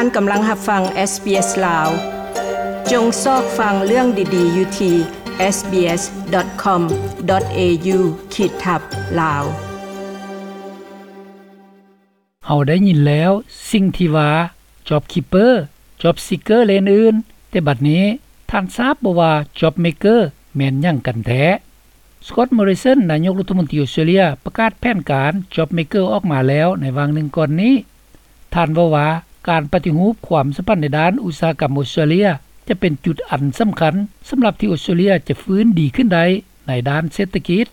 ທ່ານກຳລັງຮັບຟັງ ເອສບີເອສ ລາວ. ຈົ່ງຊອກຟັງເລື່ອງດີໆຢູ່ທີ່ ເອສບີເອສ ດອດ ຄອມ ດອດ ເອຢູ ຂີດທັບ ລາວ. ເຮົາໄດ້ຍິນແລ້ວສິ່ງທີ່ວ່າ Job Keeper, Job Seeker ແລະອື່ນໆ, ແຕ່ບັດນີ້ທ່ານຊາບບໍ່ວ່າ Job Maker ແມ່ນຫຍັງກັນແທ້? Scott Morrison ນາຍົກລັດຖະມົນຕີອົດສະຕຣາເລຍ ປະກາດແຜນການ Job Maker ອອກມາແລ້ວໃນຫວ່າງໜຶ່ງກ່ອນນີ້. ທ່ານເວົ້າວ່າ ການປະຕິຮູບຄວາມສຳພັນໃນດ້ານອຸດສາຫະກຳອົດສະຕຣາເລຍ ຈະເປັນຈຸດອັນສຳຄັນສຳລັບທີ່ອົດສະຕະເລຍຈະຟື້ນດີຂຶ້ນໄດ້ໃນດ້ານເສດຖະກິດ.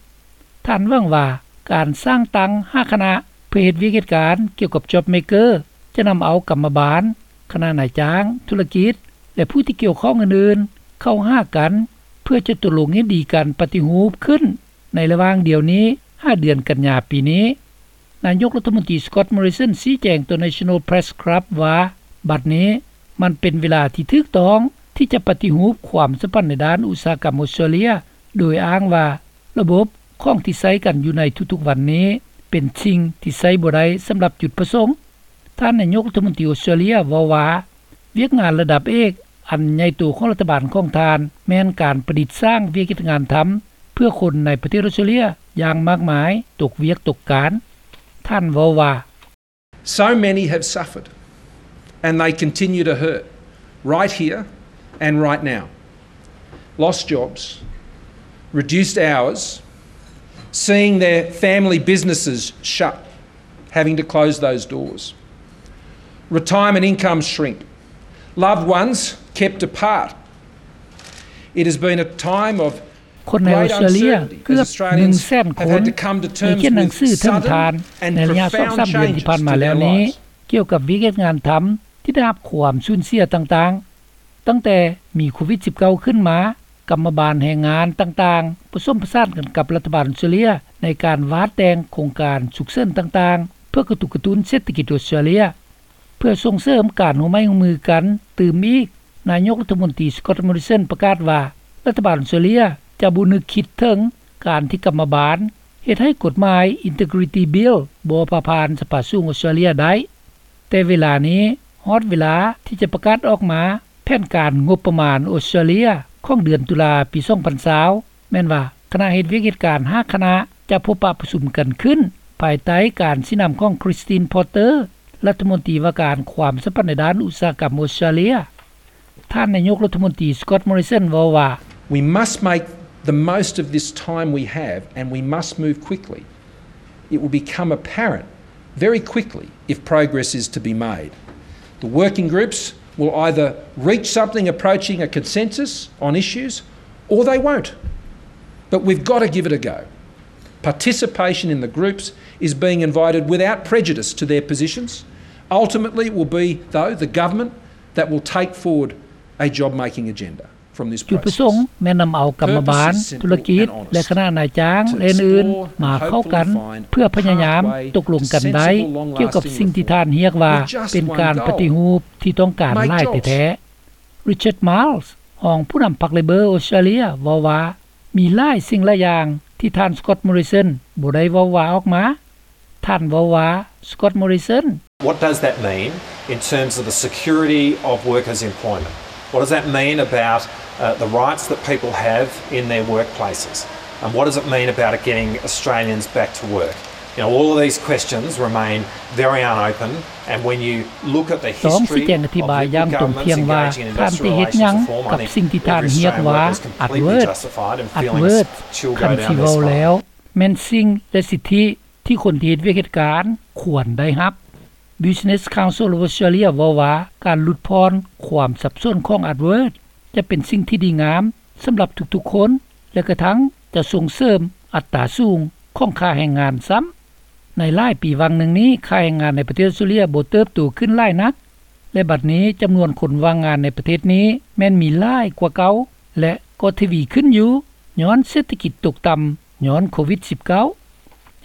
ທ່ານຫວັງວ່າ ການສ້າງຕັ້ງຫ້າຄະນະເພື່ອເຮັດວຽກເຮັດການກ່ຽວກັບ Job Maker ຈະນຳເອົາກຳມະບານ, ຄະນະນາຍຈ້າງ, ທຸລະກິດ ແລະ ຜູ້ທີ່ກ່ຽວຂ້ອງອື່ນໆ ເຂົ້າຫາກັນ ເພື່ອຈະຕົກລົງເຫັນດີກັນປະຕິຮູບຂຶ້ນໃນລະຫວ່າງດຽວນີ້ຫາເດືອນກັນຍາປີນີ້. ນາຍົກລັດຖະມົນຕີ Scott Morrison ຊີ້ແຈງຕໍ່ National Press Club ວ່າ ບັດນີ້ມັນເປັນເວລາທີ່ຖືກຕ້ອງທີ່ຈະປະຕິຮູບຄວາມສຳພັນໃນດ້ານອຸດສາຫະກຳອົດສະຕຣາເລຍ ໂດຍອ້າງວ່າ ລະບົບຂອງທີ່ໃຊ້ກັນຢູ່ໃນທຸກໆວັນນີ້ ເປັນສິ່ງທີ່ໃຊ້ບໍ່ໄດ້ສຳລັບຈຸດປະສົງ. ທ່ານນາຍົກລັດຖະມົນຕີອົດສະຕຣາເລຍເວົ້າວ່າ ວຽກງານລະດັບເອກອັນໃຫຍ່ໂຕຂອງລັດຖະບານຂອງທ່ານ ແມ່ນການປະດິດສ້າງວຽກເຮັດງານທຳ ເພື່ອຄົນໃນປະເທດອົດສະຕຣາເລຍຢ່າງມາກມາຍຕົກວຽກຕົກການ. ທ່ານເວົ້າວ່າ So many have suffered, and they continue to hurt, right here and right now. Lost jobs, reduced hours, seeing their family businesses shut, having to close those doors. Retirement incomes shrink, loved ones kept apart. It has been a time of ຄົນໃນອົດສະຕຣາເລຍເກືອບໜຶ່ງແສນຄົນ ໄດ້ຂຽນໜັງສືເຖິງທ່ານໃນໄລຍະສອງສາມເດືອນທີ່ຜ່ານມາແລ້ວນີ້ ກ່ຽວກັບວຽກເຮັດງານທຳທີ່ໄດ້ຮັບຄວາມສູນເສຍຕ່າງໆ. ຕັ້ງແຕ່ມີໂຄວິດສິບເກົ້າຂຶ້ນມາ, ກຳມະບານແຮງງານຕ່າງໆ ປະສົມປະສານກັນກັບລັດຖະບານອົດສະຕຣາເລຍ ໃນການວາດແຕ່ງໂຄງການສຸກເສີນຕ່າງໆ ເພື່ອກະຕຸກກະຕຸ້ນເສດຖະກິດອົດສະຕຣາເລຍ. ເພື່ອສົ່ງເສີມການຮ່ວມໄມ້ຮ່ວມມືກັນຕື່ມອີກ, ນາຍົກລັດຖະມົນຕີ Scott Morrison ປະກາດວ່າ ລັດຖະບານອົດສະຕຣາເລຍຈະບໍ່ນຶກຄິດເຖິງການທີ່ກຳມະບານເຮັດໃຫ້ກົດໝາຍ Integrity Bill ບໍ່ຜ່າຜ່ານສະພາສູງອົດສະຕຣາເລຍໄດ້. ແຕ່ເວລານີ້ຮອດເວລາທີ່ຈະປະກາດອອກມາແຜນການງົບປະມານອົດສະຕຣາເລຍຂອງເດືອນຕຸລາປີສອງພັນຊາວ ແມ່ນວ່າຄະນະເຮັດວຽກເຮັດການຫ້າຄະນະຈະພົບປະປະຊຸມກັນຂຶ້ນ ພາຍໃຕ້ການຊີ້ນຳຂອງ Christine Porter ລັດຖະມົນຕີວ່າການຄວາມສຳພັນໃນດ້ານອຸດສາຫະກຳອົດສະຕຣາເລຍ. ທ່ານນາຍົກລັດຖະມົນຕີ Scott Morrison ເວົ້າວ່າ We must make the most of this time we have and we must move quickly. It will become apparent very quickly if progress is to be made. The working groups will either reach something approaching a consensus on issues or they won't. But we've got to give it a go. Participation in the groups is being invited without prejudice to their positions. Ultimately, it will be, though, the government that will take forward a job-making agenda from this process. ຈຸດປະສົງແມ່ນນຳເອົາກຳມະບານ, ທຸລະກິດ ແລະ ຄະນະນາຍຈ້າງ ແລະ ອື່ນໆ ມາເຂົ້າກັນ ເພື່ອພະຍາຍາມຕົກລົງກັນໄດ້ ກ່ຽວກັບສິ່ງທີ່ທ່ານຮຽກວ່າ ເປັນການປະຕິຮູບທີ່ຕ້ອງການຫຼາຍແທ້ໆ. Richard Marles ຮອງຜູ້ນຳພັກ Labor ອົດສະຕຣາເລຍ ເວົ້າວ່າ ມີຫຼາຍສິ່ງຫຼາຍຢ່າງທີ່ທ່ານ Scott Morrison ບໍ່ໄດ້ເວົ້າວ່າອອກມາ. ທ່ານເວົ້າວ່າ Scott Morrison, What does that mean in terms of the security of workers' employment? What does that mean about, uh, the rights that people have in their workplaces? And what does it mean about getting Australians back to work? You know, all of these questions remain very unopen, and when you look at the history of Labor governments engaging in industrial relations reform, I think every Australian worker is completely justified in feeling a small spot. ແມ່ນສິ່ງ ແລະ ສິດທິ ທີ່ຄົນທີ່ເຮັດວຽກເຮັດການຄວນໄດ້ຮັບ. Business Council of Australia ເວົ້າວ່າ ການຫຼຸດຜ່ອນຄວາມສັບສົນຂອງ Upwork ຈະເປັນສິ່ງທີ່ດີງາມສຳລັບທຸກໆຄົນ ແລະ ກະທັ່ງຈະສົ່ງເສີມອັດຕາສູງຂອງຄ່າແຮງງານຊ້ຳ. ໃນຫຼາຍປີຫວ່າງໜຶ່ງນີ້ ຄ່າແຮງງານໃນປະເທດອອສເຕຣເລຍບໍ່ເຕີບໂຕຂຶ້ນຫຼາຍນັກ ແລະ ບັດນີ້ຈຳນວນຄົນວ່າງງານໃນປະເທດນີ້ແມ່ນມີຫຼາຍກວ່າເກົ່າ ແລະ ກໍທະວີຂຶ້ນຢູ່ ຍ້ອນເສດຖະກິດຕົກຕ່ຳ ຍ້ອນໂຄວິດສິບເກົ້າ.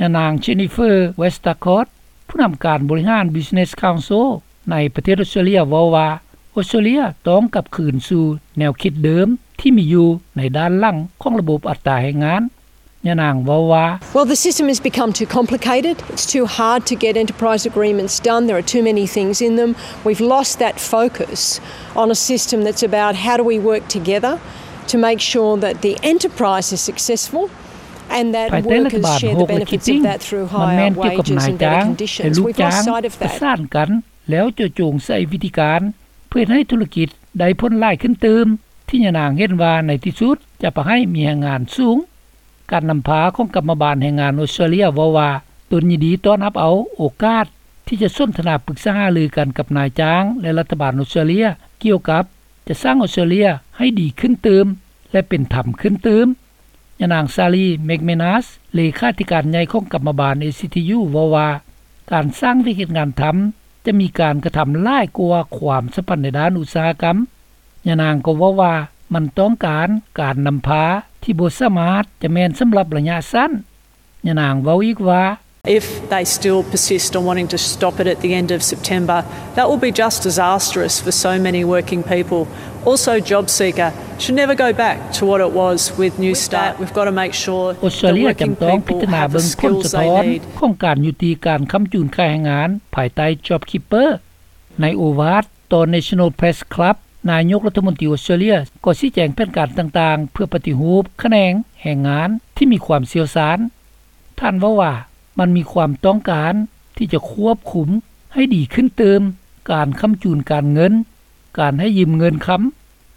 ຍານາງ Jennifer Westacott ຜູ້ນຳການບໍລິຫານ Business Council ໃນປະເທດອອສເຕຣເລຍ ເວົ້າວ່າ ອອສເຕຣເລຍຕ້ອງກັບຄືນສູ່ແນວຄິດເດີມທີ່ມີຢູ່ໃນດ້ານຫຼັງຂອງລະບົບອັດຕາແຮງງານ. ຍານາງເວົ້າວ່າ Well, the system has become too complicated. It's too hard to get enterprise agreements done. There are too many things in them. We've lost that focus on a system that's about how do we work together to make sure that the enterprise is successful and that workers share the benefits of that through higher wages and better conditions. We've lost sight of that. ປະສານກັນ ແລ້ວເຈາະຈົງໃສ່ວິທີການ ເພື່ອເຮັດໃຫ້ທຸລະກິດໄດ້ຜົນຫຼາຍຂຶ້ນຕື່ມ ທີ່ຍານາງເຫັນວ່າໃນທີ່ສຸດຈະປະໃຫ້ມີແຮງງານສູງ. ການນຳພາຂອງກຳມະບານແຮງງານອົດສະຕຣາເລຍເວົ້າວ່າ ຕົນຍິນດີຕ້ອນຮັບເອົາໂອກາດທີ່ຈະສົນທະນາປຶກສາຫາລືກັນກັບນາຍຈ້າງ ແລະ ລັດຖະບານອົດສະຕຣາເລຍ ກ່ຽວກັບຈະສ້າງອົດສະຕຣາເລຍໃຫ້ດີຂຶ້ນຕື່ມ ແລະ ເປັນທຳຂຶ້ນຕື່ມ. ຍານາງ Sally McManus ເລຂາທິການໃຫຍ່ຂອງກຳມະບານ ເອຊີທີຢູ ເວົ້າວ່າ ການສ້າງວຽກເຮັດງານທຳ ຈະມີການກະທຳຫຼາຍກວ່າຄວາມສຳພັນໃນດ້ານອຸດສາຫະກຳ. ຍານາງກໍເວົ້າວ່າ ມັນຕ້ອງການການນຳພາທີ່ບໍ່ສາມາດຈະແມ່ນສຳລັບໄລຍະສັ້ນ. ຍານາງເວົ້າອີກວ່າ If they still persist on wanting to stop it at the end of September, that will be just disastrous for so many working people. Also, JobSeeker should never go back to what it was with Newstart. We've got to make sure that working people have the skills they need. ອົດສະຕຣາເລຍຈຳຕ້ອງພິຈາລະນາເບິ່ງຜົນສະທ້ອນຂອງການຍຸຕິການຄ້ຳຈູນຄ້າແຮງງານ ພາຍໃຕ້ JobKeeper. ໃນໂອວາດຕໍ່ National Press Club ນາຍົກລັດຖະມົນຕີອົດສະຕຣາເລຍກໍຊີ້ແຈງແຜນການຕ່າງໆ ເພື່ອປະຕິຮູບຂະແໜງແຮງງານທີ່ມີຄວາມຊ່ຽວຊານ. ທ່ານເວົ້າວ່າ ມັນມີຄວາມຕ້ອງການທີ່ຈະຄວບຄຸມໃຫ້ດີຂຶ້ນຕື່ມ ການຄ້ຳຈູນການເງິນ, ການໃຫ້ຢືມເງິນຄຳ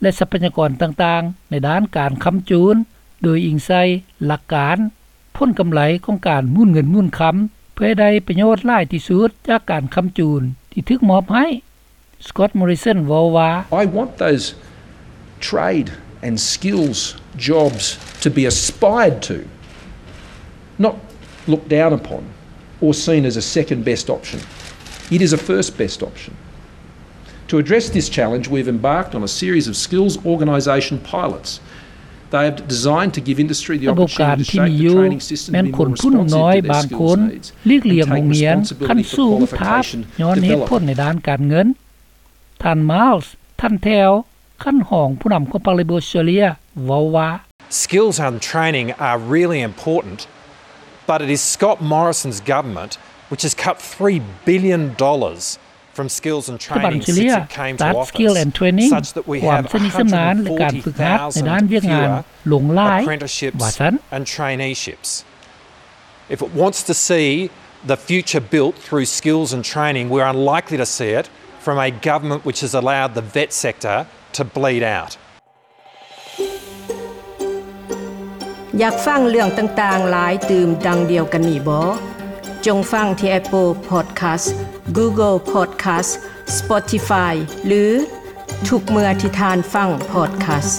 ແລະ ຊັບພະຍາກອນຕ່າງໆ ໃນດ້ານການຄ້ຳຈູນ ໂດຍອີງໃສ່ຫຼັກການ ຜົນກຳໄລຂອງການໝູນເງິນໝູນຄຳ ເພື່ອໃຫ້ໄດ້ປະໂຫຍດຫຼາຍທີ່ສຸດຈາກການຄ້ຳຈູນທີ່ຖືກມອບໃຫ້. Scott Morrison ເວົ້າວ່າ I want those trade and skills jobs to be aspired to, not looked down upon or seen as a second best option. It is a first best option. To address this challenge, we've embarked on a series of skills organisation pilots. They are designed to give industry the opportunity to shape the training system to be more responsive to their skills needs and take responsibility for qualification development. ທ່ານ Miles ທັນແຖວ ຂັ້ນຮອງຜູ້ນຳຂອງພັກ Labor ເວົ້າວ່າ Skills and training are really important, but it is Scott Morrison's government which has cut three billion dollars from skills and training since it came to office, such that we have one hundred forty thousand fewer apprenticeships and traineeships. If it wants to see the future built through skills and training, we're unlikely to see it from a government which has allowed the vet sector to bleed out. ຢາກຟັງເລື່ອງຕ່າງໆຫຼາຍຕື່ມດັ່ງດຽວກັນນີ້ບໍ? ຈົ່ງຟັງທີ່ Apple Podcast, Google Podcast, Spotify ຫຼື ທຸກເມື່ອທີ່ທ່ານຟັງ podcast.